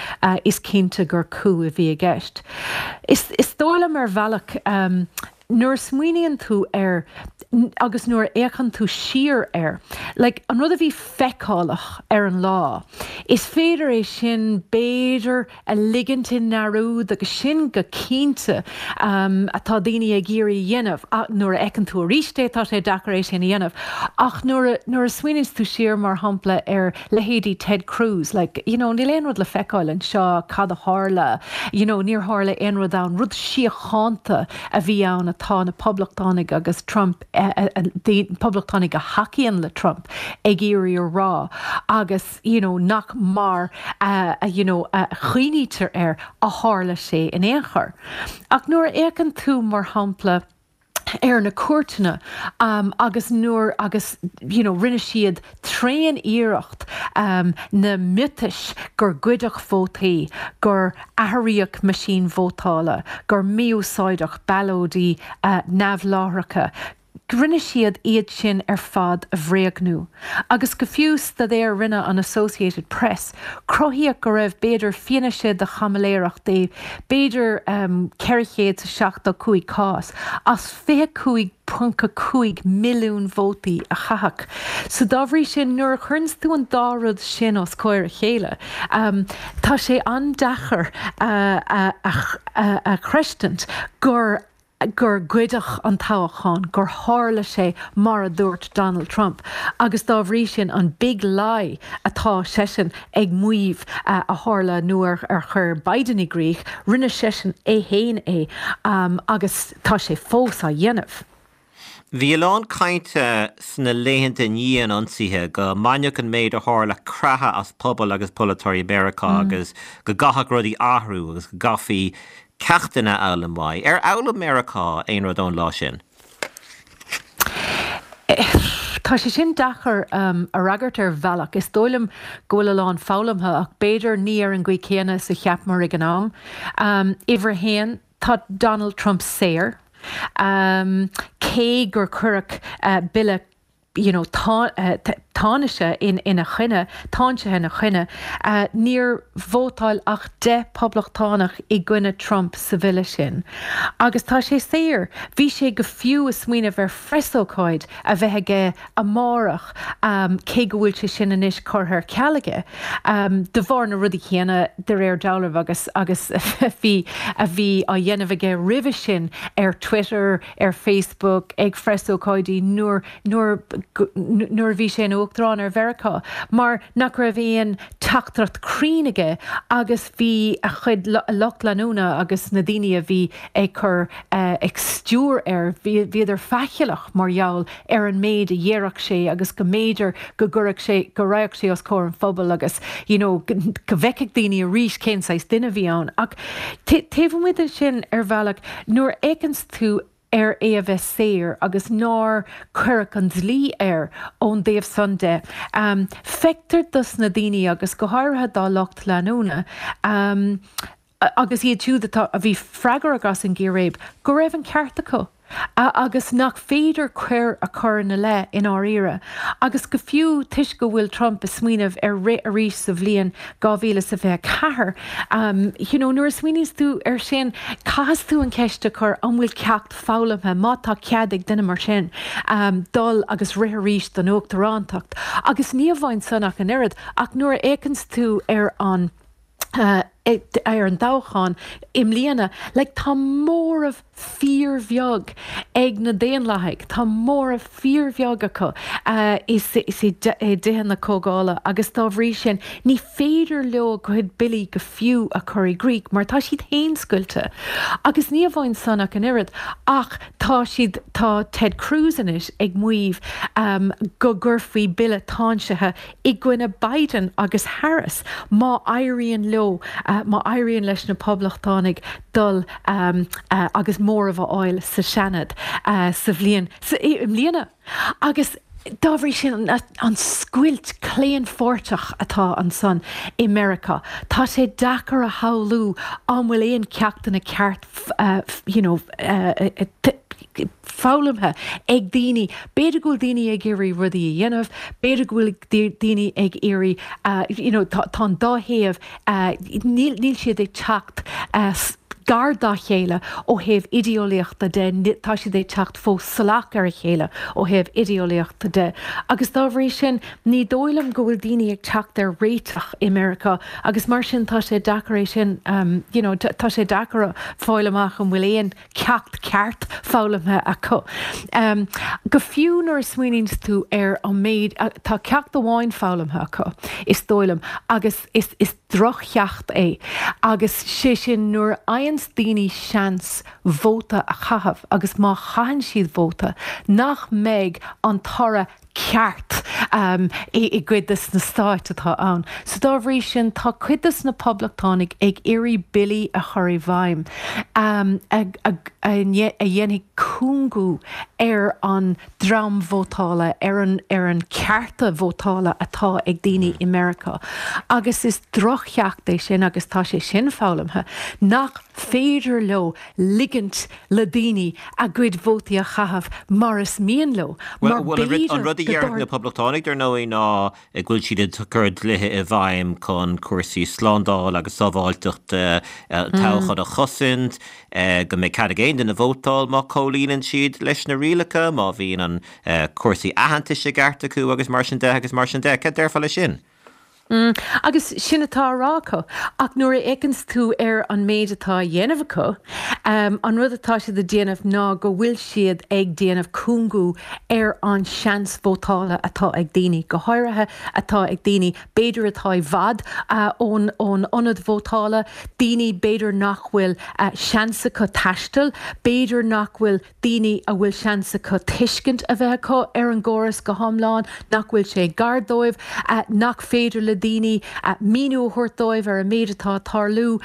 E: is cinnte gur coup a bhí i gceist. Is is dóigh liom ar bhealach, Nuair a smaoiníonn tú air agus nuair a fhéachann tú siar air, like, an rud a bhí feiceálach ar an lá, is féidir é sin, b'fhéidir, a ligint i ndearúd agus sin go cinnte atá daoine ag iarraidh a dhéanamh. Nuair a fheiceann tú arís é, tá sé deacair é sin a dhéanamh. Ach nuair a, nuair a smaoiníonns tú siar, mar shampla, ar leithéidí Ted Cruz, like, you know, níl aon rud le feiceáil anseo, cad a tharla, you know, níor tharla aon rud ann, rud síochánta a bhí ann atá na Poblachtánaigh agus Trump, Poblachtánaigh a thacaíonn le Trump ag iarraidh a rá agus, you know, nach mar a, you know, a chuimhnítear air a tharla sé in aon chor. Ach nuair a fhéachann tú, mar shampla, ar na cúirteanna agus nuair agus you know rinne siad tréan iarracht na miotais gur goideadh vótaí, gur athraíodh meaisín vótála, gur mí-úsáideadh ballóidí neamhláithreacha, rinne siad iad sin ar fad a bhréagnú. Agus go fiú staidéar a rinne an Associated Press, cruthaíodh go raibh b'fhéidir fianaise de chaimiléireacht i b'fhéidir 475 cás as 25.5 milliún vótaí a caitheadh. So dá bhrí sin, nuair a chuireanns tú an dá rud sin os comhair a chéile, tá sé an-deacair a chreidstint gur. gur goideadh an toghchán, gur tharla sé mar a dúirt Donald Trump agus dá bhrí sin an big lie atá seisean ag maíomh a tharla nó ar chuir Biden i gcrích, rinne seisean é fhéin é agus tá sé fós á dhéanamh.
A: Bhí a lán cainte sna laethanta i ndiaidh an ionsaithe go mbainfeadh an méid a tharla creathadh as pobal agus polaiteoirí Mheiriceá agus go gcaithfeadh rudaí athrú agus go gcaithfí ceachtanna a fhoghlaim uaidh. Ar fhoghlaim Meiriceá aon rud ón lá sin?
E: Tá sé sin deacair a fhreagairt ar bhealach. Is dóigh liom go bhfuil a lán foghlamtha ach b'fhéidir ní ar an gcaoi céanna is a cheapamar ag an am. Uimhir a haon, tá Donald Trump saor. Cé gur cuireadh bille you know tánaise ina choinne, táinsithe ina choinne, níor vótáil ach 10 poblachtánach i gcoinne Trump sa bhille sin. Agus tá sé saor. Bhí sé go fiú ag smaoineamh ar phreasócáid a bheith aige amárach, cé go bhfuil sé sin anois curtha ar ceal aige, de bharr na rudaí céanna, de réir dealraimh, agus agus bhí a bhí á dhéanamh aige roimhe sin ar Twitter, ar Facebook, ag phreasócáidí nuair nuair nuair a bhí sé ina Uachtarán ar Mheiriceá, mar nach raibh aon teachtaireacht cruinn aige agus bhí a chuid lucht leanúna agus na daoine a bhí ag cur ag stiúir air, bhíodar faichilleach mar gheall ar an méid a dhéarfadh sé agus go mb'fhéidir go gcuirfeadh sé, go raghadh sé os comhair an phobail agus you know go bhfeicfeadh daoine arís cén saghas duine a bhí ann. Ach taobh amuigh de sin, ar bhealach, nuair a fhéachanns tú ar é a bheith saor agus nár cuireadh an dlí air ón dtaobh san de, feictear dos na daoine agus go háirithe dá lucht leanúna, agus iad siúd atá, a bhí freagrach as an gcíréib, go raibh an ceart acu agus nach féidir coir a chur ina leith i ndáiríre. Agus go fiú toisc go bhfuil Trump ag smaoineamh ar rith arís sa bhliain 2024, you know, nuair a smaoiníonns tú ar sin, caithfidh tú an cheist a chur an bhfuil ceacht foghlamtha, má tá cead ag duine mar sin dul agus rith arís don uachtarántacht. Agus ní amháin san ach an oiread, ach nuair a fhéachanns tú ar an. ar an dtoghchán i mbliana, like tá móramh fíorbheag ag na Daonlathaigh, tá móramh fíorbheag acu i dTithe na Comhdhála agus dá bhrí sin ní féidir leo a gcuid billí go fiú a chur i gcrích mar tá siad féin scoilte. Agus ní amháin san ach an oiread ach tá siad, tá Ted Cruz anois ag maíomh go gcuirfí bille táinsithe i gcoinne Biden agus Harris má éiríonn leo, má éiríonn leis na Poblachtánaigh dul agus móramh a fháil sa Seanad sa bhliain, i mbliana. Agus dá bhrí sin, an scoilt claonpháirteach atá ansan i Meiriceá, tá sé deacair a shamhlú an bhfuil aon ceachtanna ceart you know, foghlamtha ag daoine. B'fhéidir go bhfuil daoine ag iarraidh rudaí a dhéanamh, b'fhéidir go bhfuil daoine ag iarraidh, you know, tá an dá thaobh, níl, níl siad ag teacht gar dá chéile ó thaobh idéeolaíochta de, tá siad ag teacht fós salach ar a chéile ó thaobh idéeolaíochta de. Agus dá bhrí sin, ní dóigh liom go bhfuil daoine ag teacht ar réiteach i Meiriceá agus mar sin tá sé deacair é sin, you know, tá sé deacair fáil amach an bhfuil aon ceacht ceart foghlamtha acu. Go fiú nuair a smaoiníonns tú ar an méid, tá ceacht amháin foghlamtha acu, is dóigh liom, agus is is droch-cheacht é, agus sé sin nuair a fhaigheanns daoine seans vóta a chaitheamh agus má chaitheann siad vóta, nach mbeidh an toradh ceart i gcuid de na stáit atá ann. So dá bhrí sin tá cuid de na poblachtánaigh ag iarraidh billí a chur i bhfeidhm a dhéanfaidh cúngú ar an dream vótála, ar an ar an cearta vótála atá ag daoine i Meiriceá. Agus is droch-cheacht é sin agus tá sé sin foghlamtha nach féidir leo ligint le daoine a gcuid vótaí a chaitheamh mar is mian leo, mar
A: Bhuel, b'fhéidir an rud a déarfadh na Poblachtánaigh, dar ndóigh, ná go bhfuil siad ag cur dlíthe i bhfeidhm chun cúrsaí slándála agus sábháilteachta toghcháin a chosaint, go mbeidh cead ag aon duine vótáil má chomhlíonann siad leis na rialacha, má bhíonn an cúrsaí aitheantais i gceart acu agus mar sin de agus mar sin de. Cad déarfá leis sin?
E: Mm, agus sin atá á rá acu. Ach nuair a fhéachanns tú ar an méid atá á dhéanamh acu, an rud atá siad ag déanamh ná go bhfuil siad ag déanamh cúngú ar an seans vótála atá ag daoine, go háirithe atá ag daoine b'fhéidir atá i bhfad ón ón ionad vótála, daoine b'fhéidir nach bhfuil seans acu taisteal, b'fhéidir nach bhfuil daoine a bhfuil seans acu tuiscint a bheith acu ar an gcóras go hiomlán, nach bhfuil sé gar dóibh, nach féidir le daoine míniú a thabhairt dóibh ar an méid atá ag tarlú.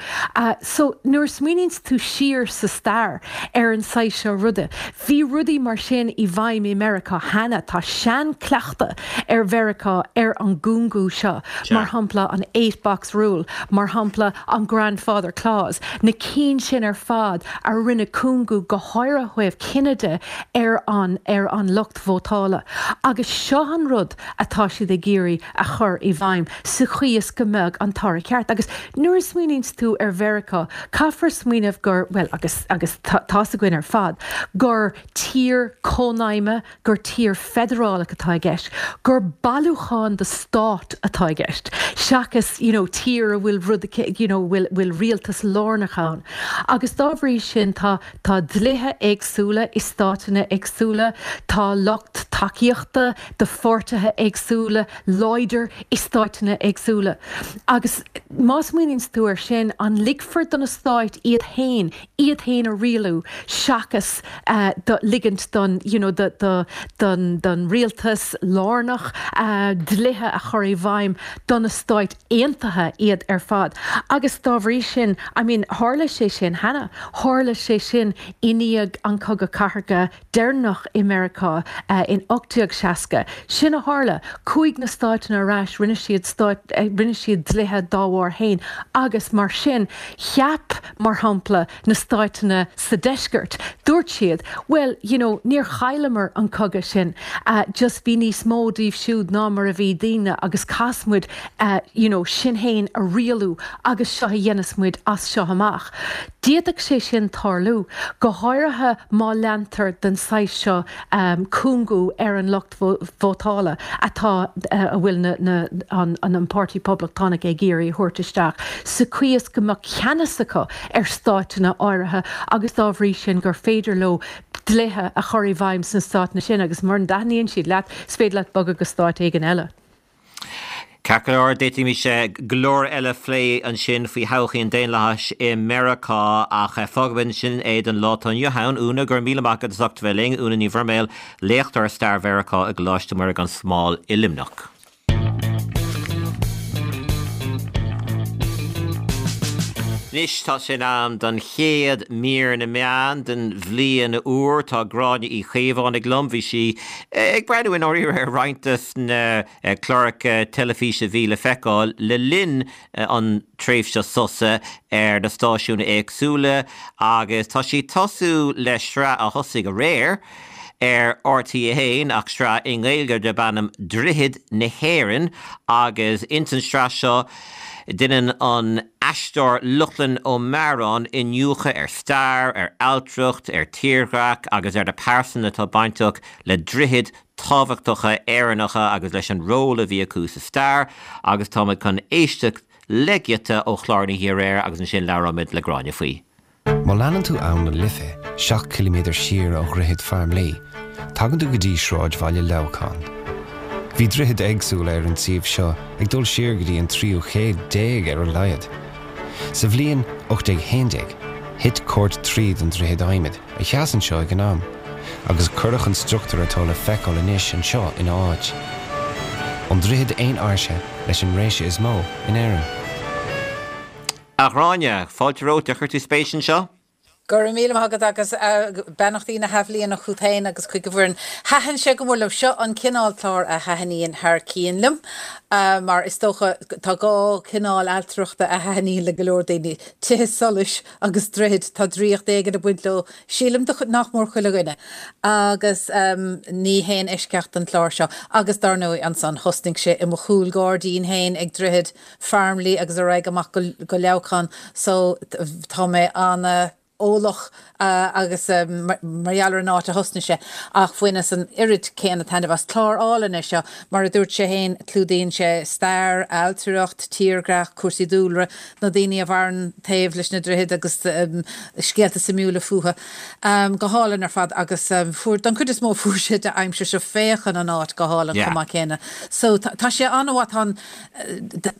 E: So, nuair a smaoiníonns tú siar sa stair ar an saghas seo ruda, bhí rudaí mar sin i bhfeidhm i Meiriceá cheana. Tá seanchleachtadh ar Mheiriceá ar an gcúngú seo, mar shampla an eight box rule, mar shampla an grandfather clause, na cinn sin ar fad a rinne cúngú, go háirithe ó thaobh cine de, ar an ar an lucht vótála. Agus seo an rud atá siad ag iarraidh a chur i bhfeidhm sa chaoi is go mbeadh an toradh ceart. Agus nuair a smaoiníonns tú ar Mheiriceá, caithfear smaoineamh gur, bhuel, agus agus tá's againn ar fad, gur tír cónaidhme, gur tír feidearálach atá i gceist, gur bailiúchán de stáit atá i gceist, seachas you know tír a bhfuil rud you know bhfuil bhfuil rialtas lárnach ann. Agus dá bhrí sin tá tá dlíthe éagsúla i stáiteanna éagsúla, tá lucht tacaíochta do pháirtithe éagsúla láidir i stáiteanna éagsúla. Agus má smaoiníonns tú air sin, an ligfear do na stáit iad féin iad féin a rialú seachas do ligint don you know do do don don rialtas lárnach dlíthe a chur i bhfeidhm do na Stáit Aontaithe iad ar fad. Agus dá bhrí sin, I mean tharla sé sin cheana, tharla sé sin i ndiaidh an Cogadh Cathartha deireanach i Meiriceá in 1860. Sin a tharla. Chuaigh na stáiteanna ar ais, rinne siad stáit, rinne siad dlíthe dá bharr féin agus mar sin cheap, mar shampla, na stáiteanna sa deisceart, dúirt siad, bhuel, you know, níor chailleamar an cogadh sin, just bhí níos mó díobh siúd ná mar a bhí dínne agus caithfidh muid, you know, sinn féin a rialú agus seo a dhéanfas muid as seo amach. D'fhéadfadh sé sin tarlú, go háirithe má leantar den saghas seo cúngú ar an lucht vótála atá, a bhfuil na, na, an, an Páirtí Poblachtánach ag iarraidh a thabhairt isteach, sa chaoi is go mbeadh ceannas acu ar stáiteanna áirithe agus dá bhrí sin gur féidir leo dlíthe a chur i bhfeidhm sna stáiteanna sin agus mura dtaitníonn siad leat, is féidir leat bogadh go stát éigin eile.
A: Ceart go leor, d'fhéadfaimis go leor eile a phlé ansin faoi thodhchaí an daonlathais i Meiriceá ach fágfaimid ansin é don lá atá inniu ann. Úna, go raibh míle maith agat as ucht a bheith linn. Úna Ní Bhroiméil, léachtóir Stair Mheiriceá i gColáiste Mhuire gan Smál i Luimneach. Anois tá sé in am don chéad mír na meán den bhliain úr. Tá Gráinne Uí Chaomhánaigh liom. Bhí sí ag breathnú i ndáiríre ar roinnt de na cláracha teilifíse a bhí le feiceáil le linn an tréimhse sosa ar na stáisiúin éagsúla agus tá sí ag tosú le sraith a thosaigh aréir ar RTÉ 1 ach sraith i nGaeilge darb ainm Droichid na hÉireann agus ins an sraith seo deineann an aisteoir Lochlainn Ó Mearáin iniúchadh ar stair, ar ailtireacht, ar tírdhreach agus ar na pearsana atá bainteach le droichid tábhachtacha Éireannacha agus leis an ról a bhí acu sa stair agus táimid chun éisteacht le giota ó chlár na hoíche aréir agus ansin labhróimid le Gráinne faoi.
F: Má leanann tú Abhainn na Life, 7 ciliméadar siar ó Dhroichead Farmleigh, tagann tú go dtí sráidbhaile Leamhcán. Bhí droichid éagsúla ar an suíomh seo ag dul siar go dtí an tríú chéad déag ar a laghad. Sa bhliain 1811, thit cairt tríd an droichead adhmaid, a sheas anseo ag an am, agus cuireadh an struchtúr atá le feiceáil anois anseo ina áit. An droichead aon áirse leis an réise is mó in Éirinn.
A: A Ghráinne, fáilte romhat, ar chuir tú spéis anseo?
G: Go raibh míle maith agat agus beannachtaí na hathbhliana chugat féin agus chuig an bhfoireann. Thaitin sé go mór liom. Seo an cineál clár a thaitníonn thar cionn liom mar is dócha tá dhá chineál ailtireachta a thaitníonn le go leor daoine, tithe solais agus droichid, tá draíocht éigin ag baint leo, sílim, do nach mór chuile dhuine. Agus ní haon eisceacht an clár seo. Agus dar ndóigh ansan thosnaigh sé i mo chúl gairdín féin ag Droichead Farmleigh agus ar aghaidh amach go Leamhcán so tá mé ana. eolach agus mar gheall ar an áit a thosnaigh sé, ach bhaineas an oiread céanna taitneamh as. Clár álainn é seo. Mar a dúirt sé féin, clúdaíonn sé stair, ailtireacht, tírdhreach, cúrsaí dúlra, na daoine a mhaireann taobh leis na droichid agus scéalta suimiúla fúthu. Go hálainn ar fad agus fuair, don chuid is mó fuair sé d'aimsir seo féachann an áit go hálainn chomh maith céanna. So tá sé an-mhaith, tá an,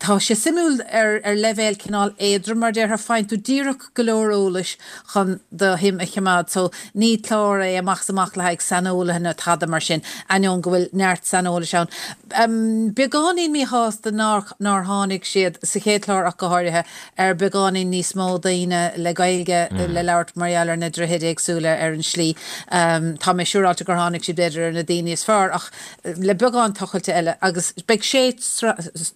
G: tá sé suimiúil ar ar leibhéal cineál éadrom mar déarfá, faigheann tú díreach go leor eolais chun do shuim a choimeád. So ní clár é amach is amach le haghaidh saineolaithe nó tada mar sin, ainneoin go bhfuil neart saineolais ann. Beagáinín míshásta nár nár tháinig siad, sa chéad chlár ach go háirithe, ar beagáinín níos mó daoine le Gaeilge le labhairt mar gheall ar na droichid éagsúla ar an slí. Tá mé siúráilte gur tháinig siad b'fhéidir ar na daoine is fearr ach le beagán tochailte eile agus beidh sé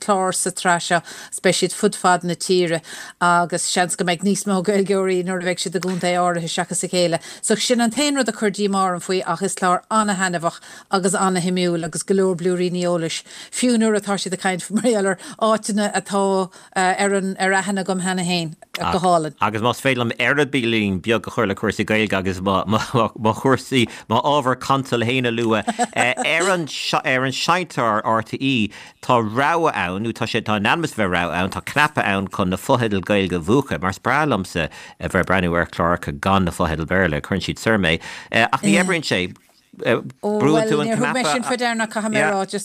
G: chlár sa tsraith seo is beidh siad fud fad na tíre agus seans go mbeidh níos mó Gaeilgeoirí nuair a bheidh siad i gcontae áirithe seachas a chéile. So sin an t-aon rud a chuir díomá orm faoi ach is clár ana-thaitneamhach agus ana-shuimiúil agus go leor blúiríní eolais fiú nuair atá siad ag caint mar gheall ar áiteanna atá ar an ar aithne agam cheana féin. Go hálainn.
A: Agus más féidir liom eireabaillín beag a chur le cúrsaí Gaeilge agus mo mo chúrsaí, mo ábhar cantail féin a lua, ar an ar an seinnteoir RTÉ tá rogha ann, nó tá sé tá in ainm is a bheith rogha ann, tá cnaipe ann chun na fotheidil Gaeilge a mhúchadh, mar is breá liomsa a bheith ag breathnú ar chláracha gan na fotheidil Béarla, cuireann siad soir mé. Ach ní oibríonn sé. Brúann tú an cnaipe,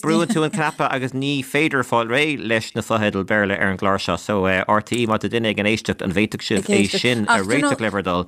A: brúann tú an cnaipe agus ní féidir fáil réidh leis na fotheidil Béarla ar an gclár seo. So RTÉ, má tá duine ag an éisteacht, an bhféadfadh sibh é sin a réiteach le bhur dtoil?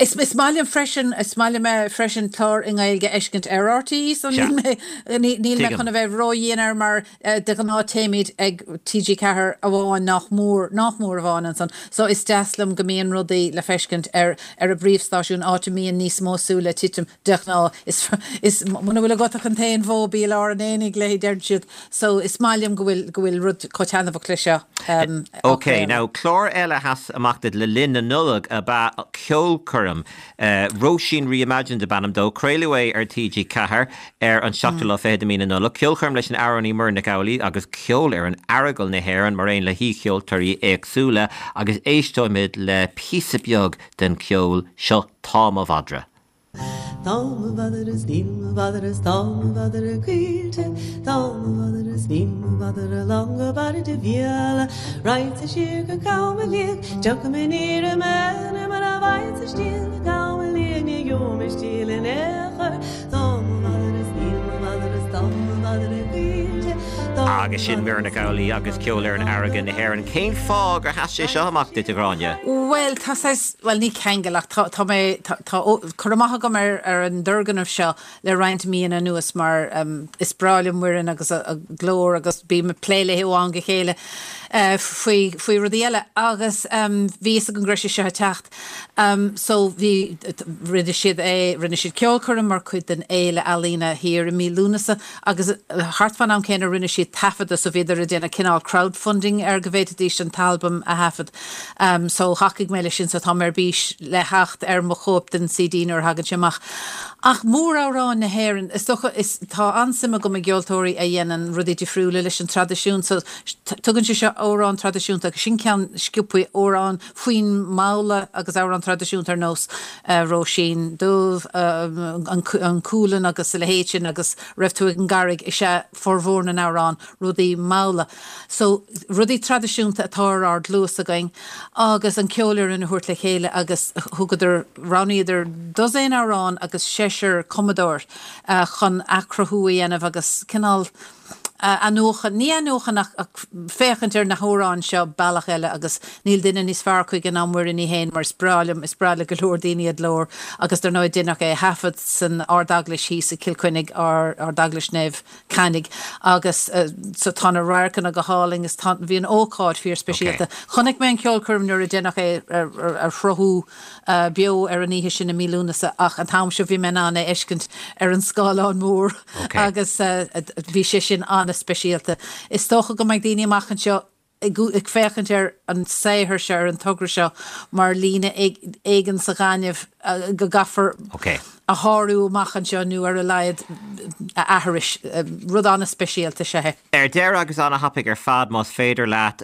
G: Is maith liom freisin, is maith liom freisin clár i nGaeilge a fheiscint ar RTÉ, so níl mé, níl mé chun a bheith ródhian air mar De ghnáth téimid ag TG4 amháin nach mór, nach mór amháin ansan, so is deas liom go mbíonn rudaí le feiscint ar ar an bpríomhstáisiún, áit a mbíonn níos mó súile ag titim de ghnáth. Is, is, muna bhfuil agat ach an t-aon bhó bí i lár an aonaigh léi, deireann siad. So is maith liom go bhfuil, go bhfuil rud chomh taitneamhach le seo á
A: Ok,
G: chraoladh.
A: now clár eile a sheas amach duit le linn na Nollag ab ea Ceolchoirm. Róisín Reimagined ab ainm dó. Craoladh é ar TG4 ar an seachtú lá fichead de mhí na Nollag. Ceolchoirm leis an amhránaí Muireann Nic Amhlaoibh agus ceol ar an Aireagal na hÉireann mar aon le haoicheoltóirí éagsúla agus éisteoimid le píosa beag den cheol seo Tá Mo Mhadra.
H: Tá mo mhadra is níl mo mhadra is tá mo mhadra caoilte Tá mo mhadra is níl mo mhadra lán go barr de mhíol Raghadsa siar go Cam a Liag Tiocfaidh mé aniar aduaidh Mura bhfaighidh-sa stiall i gCam a Liag Ní gheobhaidh mé stiall in aon chor Tá mo mhadra is níl mo mhadra is tá mo mhadra caoilte
A: Tá mo Agus sin Muireann Nic Amhlaoibh agus ceol ar an Aireagal na hÉireann. Cén fáth gur sheas sé seo amach duit, a Ghráinne?
G: Bhuel, tá saghas, bhuel ní ceangal ach tá, tá mé, tá, tá cur amach agam ar, ar an dturgnamh seo le roinnt míonna anuas mar is breá liom Muireann agus a glór agus bím ag plé léi ó am go chéile faoi, faoi rudaí eile agus bhí fhios agam go raibh sé seo ag teacht. So bhí, rinne siad é, rinne siad ceolchoirm mar chuid den Fhéile Ealaíne thiar i mí Lúnasa agus thart fán am céanna rinne siad taifeadadh so bhíodar ag déanamh cineál crowdfunding ar go bhféadfaidís an t-albam a thaifead. So thacaigh mé leis sin so tá mé ar bís le theacht ar mo chóip den CD nuair a thagann sé amach. Ach móramhráin na hÉireann, is dócha, is, tá an-suim agam i gceoltóirí a dhéanann rudaí difriúla leis an traidisiún so tugann sé seo amhrán traidisiúnta agus sin ceann sciobthaí amhrán faoin mbabhla agus amhrán traidisiúnta ar nós Róisín Dubh, An Cualann agus a leithéid sin agus Raibh tú ag an gCarraig is ea formhór na n-amhrán, rudaí malla. So, rudaí traidisiúnta atá ar ár gcluas againn agus an ceolfhoireann a thabhairt le chéile agus thugadar, roghnaíodar dosaen amhrán agus seisear cumadóir chun athchruthú a dhéanamh agus cineál, athnuachan, ní athnuachan ach féachaint ar na hamhráin seo bealach eile agus níl duine níos fearr chuige ná Muireann í fhéin mar is breá liom, is breá le go leor daoine a glór agus dar ndóigh deineadh é a thaifead san Ardeaglais thíos i gCill Chainnigh, Ardeaglais Naomh Cainigh agus so tá na radharcanna go hálainn is tá, bhí an ócáid fíor speisialta. Chonaic mé an cheolchoirm nuair a deineadh é a shruthú beo ar an oíche sin i mí Lúnasa ach an t-am seo bhí mé in ann é a fheiscint ar an scáileán mór agus bhí sé sin an-speisialta. Is dócha go mbeidh daoine amach anseo ag féachaint ar an saothar seo, ar an togra seo mar líne éigin sa ghaineamh go gcaithfear a shárú amach anseo nó ar a laghad a aithris. Rud an-speisialta is ea é.
A: Ar deireadh agus an-thapaidh ar fad más féidir leat.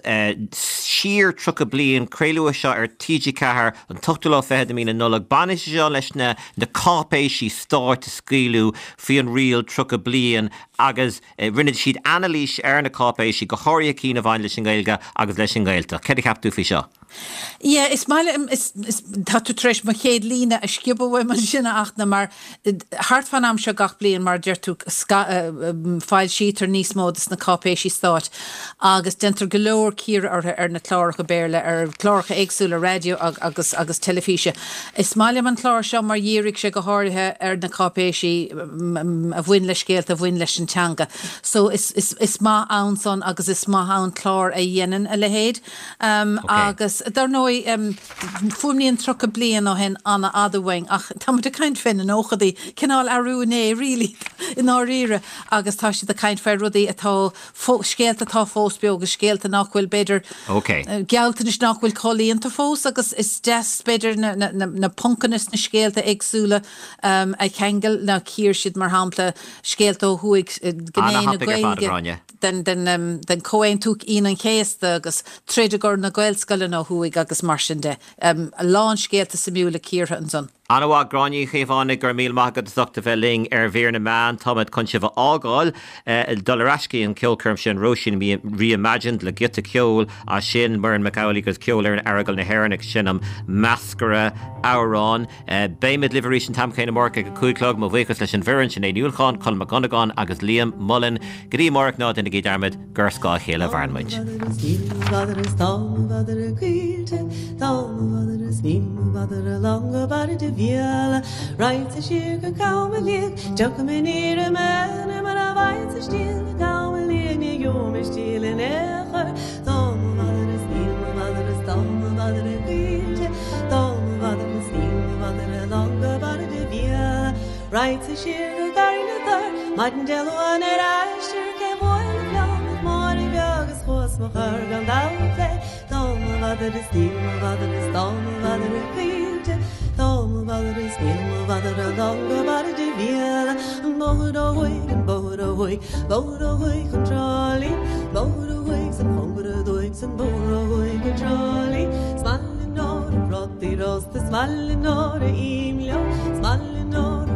A: Siar 30 Bliain, craoladh é seo ar TG4 an t-ochtú lá fichead de mí na Nollag. Baineann sé seo leis na na cáipéisí stáit a scaoileadh faoi an riail 30 bliain agus rinne siad anailís ar na cáipéisí, go háirithe cinn a bhain leis an nGaeilge agus leis an nGaeltacht. Céard a cheap tú faoi seo?
G: Yeah, is maith liom, is, is, tá tú tar éis mo chéad líne a sciobadh uaim ansin a Fhachtna, mar thart fán am seo gach bliain, mar a deir tú, foilsítear níos mó de na cáipéisí stáit agus déantar go leor cíoradh orthu ar na cláracha Béarla, ar chláracha éagsúla raidió agus, agus teilifíse. Is maith liom an clár seo mar dhírigh sé go háirithe ar na cáipéisí a bhain le scéalta a bhain leis an teanga. So is, is, is maith ann san agus is maith ann clár a dhéanann a leithéid. Agus dar ndóigh, fuaimníonn 30 bliain ó shin an-fhada uainn ach tá muid ag caint fé na nóchadaí, cineál arú inné really i ndáiríre agus tá siad ag caint fé rudaí atá, scéalta atá fós beo agus scéalta nach bhfuil b'fhéidir, gealltanais nach bhfuil comhlíonta fós agus is deas b'fhéidir na poncanna sna scéalta éagsúla a cheangal, ná cíor siad mar shampla scéalta ó thuaidh, gné na Gaeilge. den Chomhaontú Aoine an Chéasta agus troid i gcomhair na Gaelscoileanna ó thuaidh agus mar sin de. A lán scéalta suimiúla cíortha ansan.
A: Ana-mhaith, Gráinne Uí Chaomhánaigh, go raibh míle maith agat as ucht a bheith linn ar Mhír na Meán. Táimid chun sibh a fhágáil, dul ar ais go dtí an ceolchoirm sin, Róisín Reimagined le giota ceoil as sin, Muireann Mac Amhlaigh agus Ceolfhoireann Aireagal na hÉireann ag seinm Meascaire Amhrán. Beimid libh arís an t-am céanna amárach ag a 5 a chlog. Mo bhuíochas leis an bhfoireann, Sinéad Ní Uallacháin, Colm Mac Dhonnagáin agus Liam Mullen. Go dtí amárach, ná déanaigí dearmad gur ar scáth a chéile a mhaireann muid.
H: Raghadsa siar go Garraí na dTor, Maidin Dé Luain ar aistear cé bhuail an ceann ach Máire bheag is chuas mo chur gan dabht léi. Tá mo mhadra is níl mo mhadra is tá mo mhadra caoilte, Tá mo mhadra is níl mo mhadra lán go barr de mhíol. An bóthar ó thuaidh, an bóthar ó thuaidh, bóthar ó thuaidh chun Trá Lí, bóthar ó thuaidh 's an cóngar aduaidh 's an bóthar ó thuaidh go Trá Lí. 'S maith liom nuair a prátaí rósta, 's maith liom nuair a ím leo, 's maith liom nuair a.